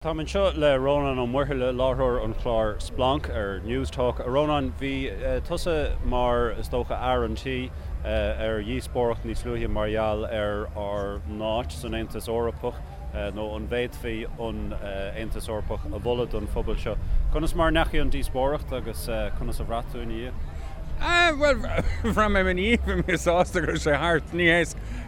Táim anseo le Rónán Ó Muirthile, láithreoir an chláir Splanc ar Newstalk. A Rónáin, bhí tusa mar, is dócha, fhear an tí ar dhíospóireacht níos luaithe mar gheall ar ár n-áit san Aontas Eorpach, nó an bhféadfaí an Aontas Eorpach a mholadh don phobal seo. Conas mar a ndeachaigh an díospóireacht agus conas a bhraith tú ina dhiaidh? Bhuel, bhraith mé ina dhiaidh, bhí mé sásta go raibh sé thart. Ní hé,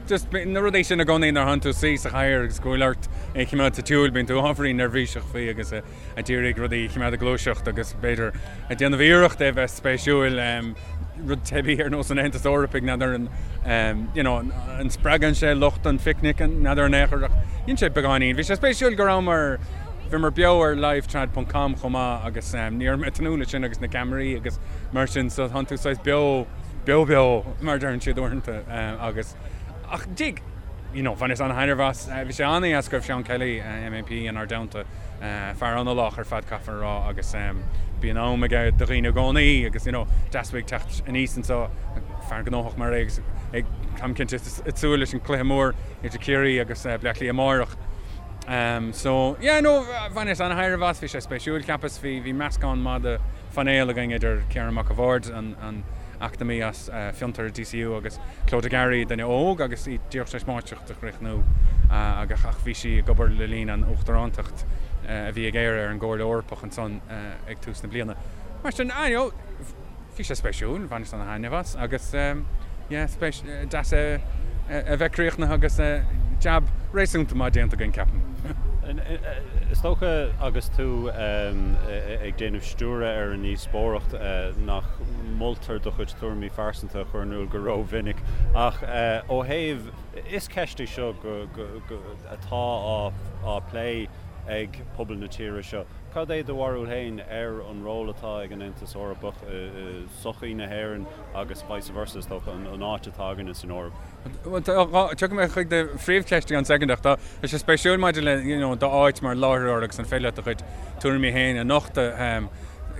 just na rudaí sin i gcónaí nuair a thánn tú suí sa chathaoir agus go bhfuil ort é a choimeád sa tsiúl, bíonn tú ábhairín neirbhíseach faoi agus ag iarraidh rudaí a choimeád ag gluaiseacht agus b'fhéidir ag déanamh iarracht é a bheith spéisiúil, rud teibí ar nós an Aontais Eorpaigh, n'fheadar an, you know, an spreagann sé lucht an phicnic, n'fheadar in aon chor ach dhein sé beagáinín. Bhí sé spéisiúil go rabhamar, bhíomar beo ar livetrad ponc com chomh maith agus ní raibh mé ag tnúth leis sin agus na ceamaraí agus mar sin so tánn tú saghas beo, beo beo mar a deireann siad uaireanta agus ach dig, you know, bhaineas an-thaitneamh as. Bhí sé an-dheas go raibh Seán Kelly, MEP, inár dteannta, fear an-lách ar fad caithfear a rá agus bíonn am aige do dhaoine i gcónaí agus you know, deas uaidh teacht aníos anseo, fear gnóthach mar é agus ag, táim cinnte, ag súil leis an cluiche mór idir Ciarraí agus Bleá Cliath amárach. So, yeah, no, bhaineas an-thaitneamh as, bhí sé spéisiúil, cheapas, bhí, bhí meascán maith de phainéal againn idir Ciarán Mac a' Bhaird, an, an eacnamaí as Fiontar DCU agus Clodagh Garry, duine óg agus í díreach tar éis máistreacht a chríochnú agus ach bhí sí ag obair le linn an uachtarántacht a bhí ag Éire ar an gComhairle Eorpach ansan ag tús na bliana. Mar sin, ah, you know, Bhí sé spéisiúil, bhaineas ana-thaitneamh as agus yeah, spéis, deas é a bheith críochnaithe agus jab réasúnta maith déanta againn, ceapaim. Is dócha agus tú ag déanamh stiúradh ar an ndíospóireacht nach moltar do chuid tuairimí phearsanta a chur in iúl go rómhinic ach ó thaobh, is ceist í seo atá á plé ag pobal na tíre seo. Cad é do bharúil féin ar an ról atá ag an Aontas Eorpach i sochaí na hÉireann agus vice versa, is dócha, an áit atá againne san Eoraip? Bhuel, tiocfaidh mé chuig do phríomhcheist i gceann soicind ach tá sé spéisiúil maidir le you know d'áit mar láithreoir agus an féidir leat do chuid tuairimí féin a nochtadh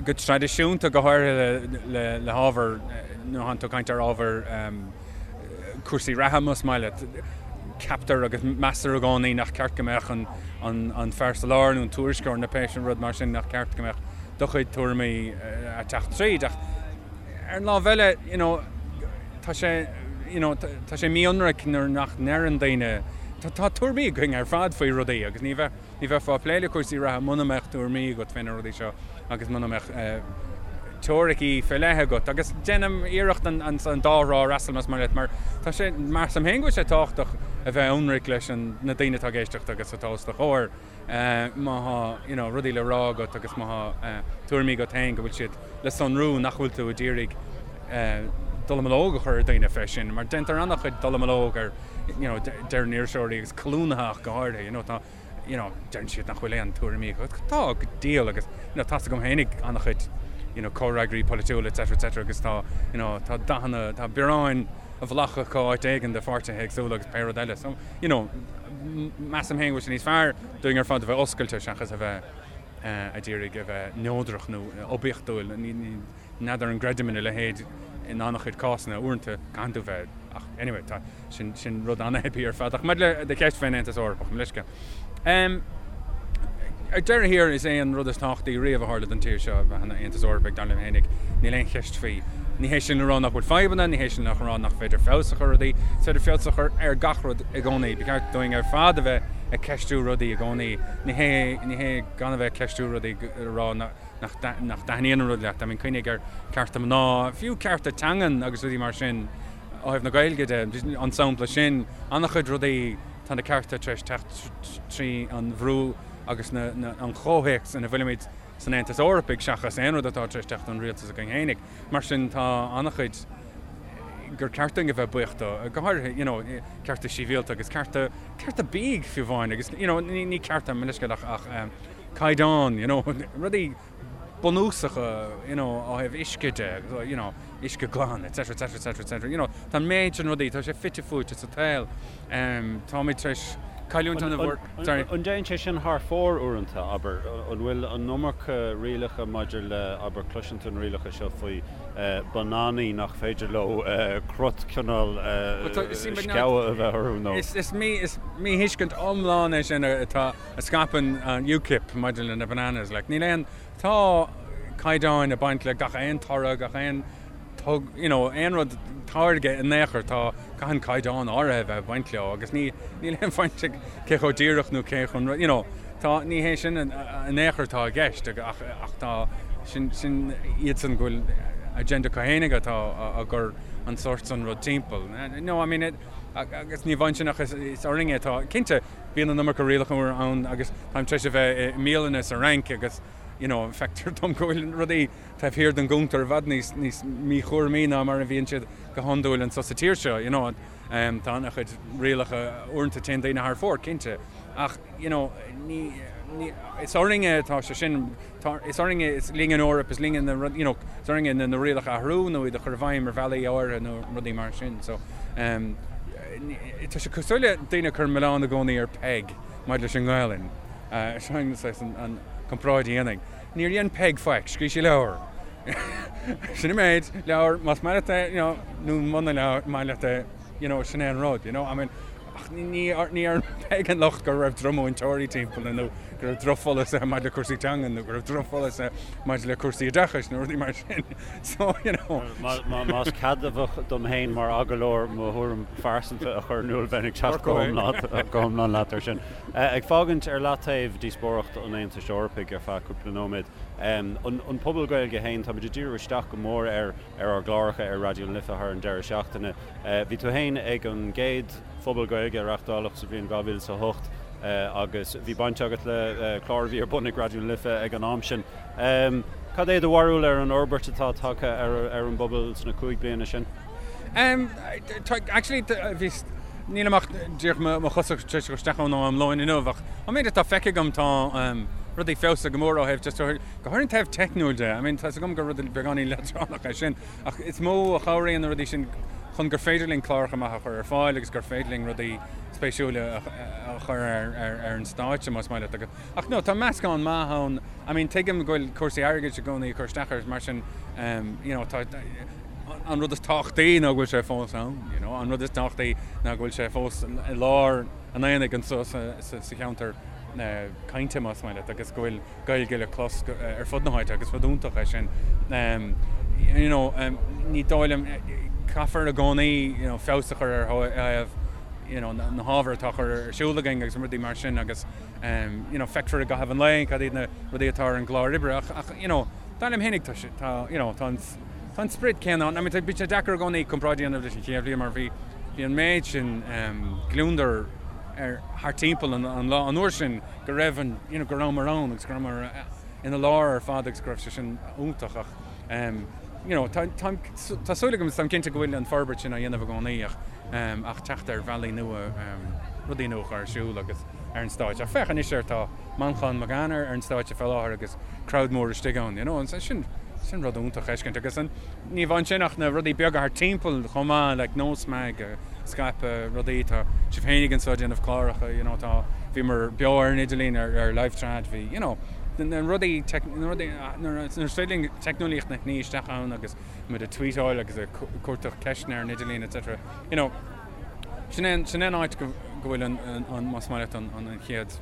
go traidisiúnta, go háirithe le le hábhar, nuair atánn tú ag caint ar ábhar cúrsaí reatha más maith leat. Ceaptar agus meastar i gcónaí nach ceart go mbeadh an fear sa lár nó an tuairisceoir nó pé rud mar sin, nach ceart go mbeadh do chuid tuairimí ag teacht tríd. Ach ar an lámh eile, you know, tá sé, you know, tá sé mí-ionraic nuair nach ndeireann daoine, tá tuairimí againn ar fad faoi rudaí agus ní bheadh, Ní bheifeá ag plé le cúrsaí reatha muna mbeadh tuairimí agat fé na rudaí seo agus muna mbeadh teoiricí fé leith agat. Agus déanaim iarracht an dá thrá a fhreastal más maith leat mar tá sé, measaim féin go bhfuil sé tábhachtach a bheith ionraic leis na daoine atá ag éisteacht agus atá os do chomhair má thá you know rudaí le rá agat agus má thá tuairimí agat féin go bhfuil siad le sonrú nach bhfuil tú ag iarraidh dallamullóg a chur ar dhaoine fé sin mar déantar an-chuid dallamullóg ar you know deireann iriseoirí agus colúnaithe ach go háirithe you know tá you know deireann siad nach bhfuil aon tuairimí acu. Tá go diabhal agus you know tá's agam féinig an-chuid you know comhfhreagraí polaitiúla etc etc agus tá you know tá dathanna tá bioráin a bhflaitheadh acu áit éigin de pháirtithe éagsúla agus pé rud eile so you know measaim féin go bhfuil sé níos fearr dúinn ar fad a bheith oscailte seachas a bheith ag iarraidh a bheith neodrach nó oibiachtúil. N'fheadar an gcreidim ina leithéid in an-chuid cásanna, uaireanta caitheann tú bheith, ach anyway, tá, sin, sin rud an-theibí ar fad. Ach maidir le do cheist fén Aontas Eorpach, mo leithscéal. Em, ar deireadh thiar, is é an rud is tábhachtaí riamh a tharla don tír seo a bheith ina Aontas Eorpaigh, dar liom fhéinig, níl aon cheist faoi. Ní hé sin le rá nach bhfuil fadhbanna, ní hé sin le rá nach féidir feabhas a chur ar rudaí, is féidir feabhas a chur ar gach rud i gcónaí. Ba cheart dúinn ar fad a bheith ag ceistiú rudaí i gcónaí. Ní hé, ní hé gan a bheith ag ceistiú rudaí a rá nach dtaitníonn an rud leat. I mean, cuimhnigh ar cearta mná, fiú cearta teangan agus rudaí mar sin ó thaobh na Gaeilge de, an sampla sin, an-chuid rudaí, tá na cearta tar éis teacht trí an bhrú agus an chomhthéacs ina bhfuilimid san Aontas Eorpaigh seachas aon rud atá tar éis teacht ón rialtas againn fhéinig. Mar sin tá an-chuid gur ceart dúinn a bheith buíoch dó, go háirithe, you know, cearta sibhialta agus cearta, cearta bídh fiú amháin agus, you know, ní cearta, mo leithscéal ach, ach, caighdeán, you know, rudaí bunúsacha, you know, ó thaobh uisce de, you know, uisce glan, etc, etc, etc, etc, you know, tá an méid sin rudaí, tá sé fite fuaite sa tsaol. Táimid tar éis Cailliúint an-mhór. Sorry. An dtéann sé sin thar fóir uaireanta, abair? An bhfuil an iomarca rialacha maidir le, abair, cloiseann tú na rialacha seo faoi bananaí nach féidir leo crot cineál sceabha a bheith orthu nó. Is míthuiscint iomlán é sin atá, a scaipeann an UKIP maidir le na bananas. Like, níl aon, tá caighdeáin ag baint le gach aon toradh, gach aon tug, you know, aon rud táirge in aon chor, tá, caitheann caighdeán áirithe a bheith ag baint leo agus ní, níl aon bhaint ag cé chomh díreach nó cé chomh, you know, tá, ní hé sin in aon chor atá i gceist ach, ach tá, sin, sin iadsan go bhfuil agenda acu fhéinig atá á gcur an sórt san rud timpeall. No, I mean, it, agus ní amháin sin ach is, is orainn é atá, cinnte, bíonn an iomarca rialacha ann agus táim tar éis a bheith i mbialanna sa Fhrainc agus, you know, feictear dom go bhfuil rudaí taobh thiar den gcuntar i bhfad níos, níos míchúramaí ná mar a bhíonn siad go hiondúil anseo sa tír seo, you know. Tá an-chuid rialacha, uaireanta téann daoine thar fóir, cinnte, ach, you know, ní, ní, is orainne atá sé sin, tá, is orainne, is linn an Eoraip, is linn na, you know, is orainne na, na rialacha a athrú nó iad a chur i bhfeidhm ar bhealaí áirithe nó rudaí mar sin. So, um, tá sé cosúil le daoine ag cur milleán i gcónaí ar Peig maidir leis an nGaelainn. Uh, sin an, an comparáid a dhéanfainn. Níor dhein Peig faic, scríobh sí leabhar. Sin an méid, leabhar, más maith leat é, you know, nó muna maith leat é, you know, sin é an rud, you know, I mean, ach ní, ní ar Peig an locht go raibh drochmhúinteoirí timpeall nó go raibh drochpholasaithe maidir le cúrsaí teanga nó go raibh drochpholasaithe maidir le cúrsaí oideachais nó rudaí mar sin. So, you know. Más ceadmhach dom féin mar agallóir mo thuairim phearsanta a chur in iúl, bheinn ag teacht go hiomlán leat ar sin. Ag fágaint ar leataobh díospóireacht an Aontais Eorpaigh ar feadh cúpla nóiméad, an pobal Gaeilge féin, táimid ag díriú isteach go mór air ar ár gcláracha ar Raidió na Life thar an deireadh seachtaine. Bhí tú féin ag an gcéad Phuball Gaeilge a reáchtáladh sa bhliain 2008 agus bhí baint agat le clár a bhí ar bun ag Raidió na Life ag an am sin. Cad é do bharúil ar an fhorbairt atá tagtha ar an bpobal sna 5 bliana sin? Actually, bhí, nílim ach díreach mo chosa tar éis dul isteach ann ó am lóin inniu ach an méid atá feicthe agam tá rudaí feabhsaithe go mór ó thaobh just go háirithe an taobh teicniúil de. I mean tá's agam gur rud beagáinín leadránach é sin ach is mó a chabhraíonn na rudaí sin chun gur féidir linn cláracha maithe a chur ar fáil agus gur féidir linn rudaí spéisiúla a chur ar an stáitse más maith leat. Ach no, tá meascán maith ann. I mean tuigim go bhfuil cúrsaí airgid i gcónaí ag cur isteach air mar sin you know tá an rud is tábhachtaí ná go bhfuil sé fós ann, you know, an rud is tábhachtaí ná go bhfuil sé fós i lár an aonaigh anseo sa cheantar cainte, más maith leat, agus go bhfuil Gaeilge le clos ar fud na háite agus rud iontach é sin. You know, ní dóigh liom, caithfear i gcónaí, you know, feabhas a chur ar thaobh, you know, na hábhair atá á chur ar siúl againn agus rudaí mar sin agus, you know, feicfear i gcaitheamh an lae cad iad na rudaí atá ar an gclár oibre ach, ach, you know, dar liom fhéinig tá sé, tá, you know, tá an, Tá an sprid céanna ann. I mean, bíonn sé deacair i gcónaí comparáid a dhéanamh leis an chéad bhliain mar bhí bhí an méid sin gliondar ar thart timpeall an an lá an uair sin go raibh an you know go rabhamar ann agus go rabhamar ina lár ar fad agus go raibh sé sin iontach ach you know tá tá tá súil agam táim cinnte go bhfuil an forbairt sin á dhéanamh i gcónaí ach ach teacht ar bhealaí nua rudaí nua a chur ar siúl agus ar an stáitse. Ach féach anois air tá Manchán Magan ar an stáitse fé láthair agus crowd mór istigh ann, you know, and sin, sin rud iontach a fheiscint. Agus an, ní amháin sin ach na rudaí beaga thart timpeall chomh maith, like Nós Mag, ag scaipeadh rudaí, tá sibh fhéinig anseo ag déanamh cláracha, you know, tá, bhíomar beo ar an idirlíon ar, ar LiveTrad, bhí, you know, na rudaí, na rudaí, nuair is féidir linn teicneolaíocht a shní isteach ann agus muid ag tweetáil agus ag cuartach ceisteanna ar an idirlíon etc. You know, sin é, sin é an áit go, go bhfuil an, an, más maith leat an, an, an chéad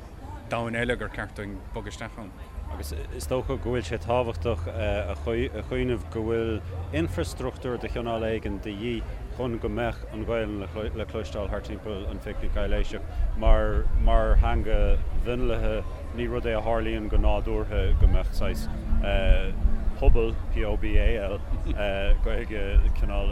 domhan eile gur ceart dúinn bogadh isteach ann. Agus is dócha go bhfuil sé tábhachtach a chuimhneamh go bhfuil infreastruchtúr de chineál éigin de dhíth chun go mbeadh an Ghaelainn le cloisteáil thart timpeall an Phicnic Aibhléiseach. Mar mar theanga mhionlaithe, ní rud é a tharlaíonn go nádúrtha go mbeadh saghas pobal, POBAL, Gaeilge cineál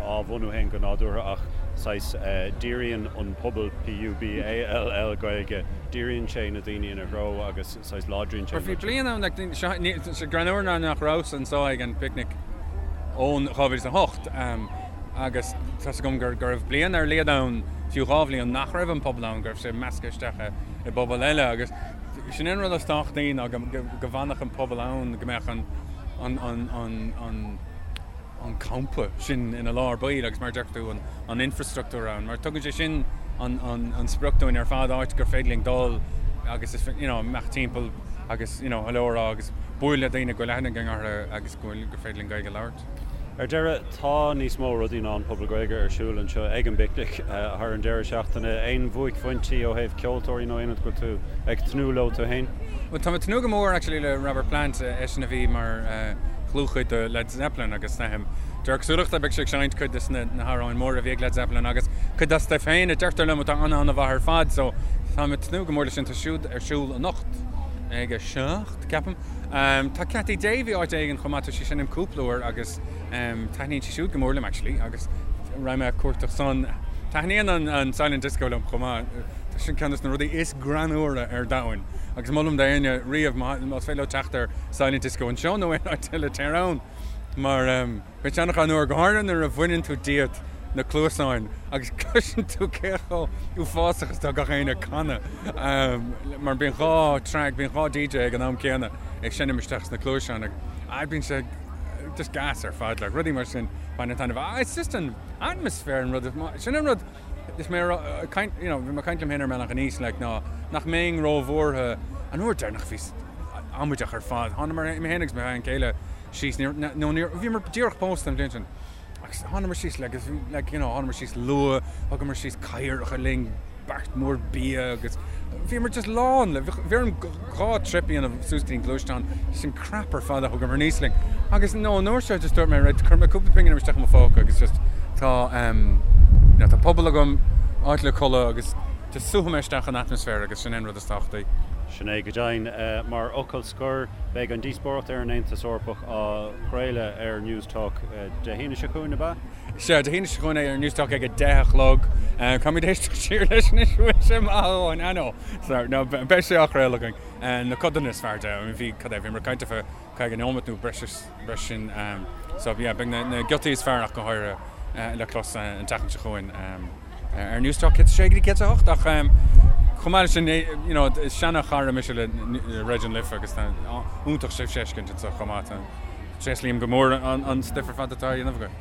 á bhunú féin go nádúrtha ach saghas díríonn an pobal, PUBALL, Gaeilge, díríonn sé na daoine ina threo agus saghas láidríonn sé an rud sin. Bhí bliain ann, like, seo, ní, sé greannmhar ná nach rabhas anseo ag an bpicnic ón 2008 agus tá's agam gur, go raibh bliain ar a laghad ann, fiú dhá bhliain, nach raibh an pobal ann, go raibh sé measctha isteach i, i bpobal eile agus sin an rud is tábhachtaí ná go, go, go bhfanfadh an pobal ann, go mbeadh an, an, an, an, an, an campa sin ina lár baill agus mar a deir tú an infrastruchtúr ann mar tugann sé sin an sprioc dúinn ar fad, áit gur féidir linn dul agus is, you know, imeacht timpeall agus, you know, hello a rá agus bualadh le daoine go bhfuil aithne againn orthu agus go bhfuil, gur féidir linn Gaeilge a labhairt. Ar deireadh, tá níos mó rudaí ná an Puball Gaeilge ar siúl anseo ag an bPicnic thar an deireadh seachtaine. Aon bhuaicphointí ó thaobh ceoltóirí nó aon rud go bhfuil tú ag tnúth leo tú féin? Bhuel, tá mé ag tnúth go mór actually le Robert Plant, eisean a bhí mar dhlúthchuid de Led Zeppelin agus de réir cosúlachta beidh sé ag seinnt cuid de na hamhráin móra a bhí ag Led Zeppelin agus cuid dá stuif féin a deirtear liom atá an-an-mhaith ar fad so tá mé ag tnúth go mór leis sin. Tá siúd ar siúl anocht ag a 7, ceapaim. Tá Cathy Davey áit éigin chomh maith, tá sí ag seinm cúpla uair agus taitníonn sí siúd go mór liom actually agus raghaidh mé ag cuartach san. Taitníonn an Silent Disco liom chomh maith, tá sin ceann de na rudaí is greannmhaire ar domhain agus molaim d'éinne riamh más féidir leo teacht ar Silent Disco anseo nó aon áit eile téir ann mar Bíonn sé an-ghreannmhar, go háirithe nuair a bhaineann tú díot na cluasáin agus cloiseann tú cé chomh uafásach is atá gach éinne ag canadh. Mar bíonn 2 track, bíonn 2 DJ ag an am céanna ag seinm isteach sna cluaiseáin agus bíonn sé just gas ar fad, like, rudaí mar sin bainim taitneamh. Ah, it's just an atmosphere an rud, sin an rud is mé ag caint, you know, bhí mé ag caint liom féin ar an mbealach aníos, like, ná nach mbeinn róbhuartha an uair deireanach bhíos amaideach ar fad. Thánamar, mé féin agus mo bhean chéile, síos, níor, nó níor, bhíomar díreach pósta an bhliain sin agus thánamar síos like, like, you know, thánamar síos luath, thugamar síos cathaoireacha linn, beart mór bia agus bhíomar just lán le, bhí orm 2 trip a dhéanamh suas go dtí an gluaisteán, just an crap ar fad a thugamar aníos linn. Agus no, an uair seo just dúirt mé, right, cuirfidh mé cúpla pingin isteach i mo phóca agus just tá, um, you know, tá puball agam, áit le codladh agus just súfaidh mé isteach an atmaisféar agus sin é an rud is tábhachtaí. Sin é go deimhin. Mar fhocal scoir, beidh an díospóireacht ar an Aontas Eorpach á chraoladh ar Newstalk Dé hAoine seo chugainn, ab ea? Sea, Dé hAoine seo chugainn ar Newstalk ag 10 a chlog. Caithfimid éisteacht siar leis anois, an bhfuil sé maith a dhóthain? I know. Sorry, no, beidh sé á chraoladh againn. Na codanna is fearr de. Bhí, cad é, bhíomar ag caint ar feadh 50 nóiméad nó breis is breis sin. So, yeah, beidh na giotaí is fearr ach go háirithe le clos an tseachtain seo chugainn. ar Newstalk 106 go dtí 108 ach chomh maith leis sin you know is seana-chara mise le Raidió na Life agus tá iontach sibhse a fheiscint anseo chomh maith. Tréaslaím go mór an stuif ar fad atá á dhéanamh agaibh.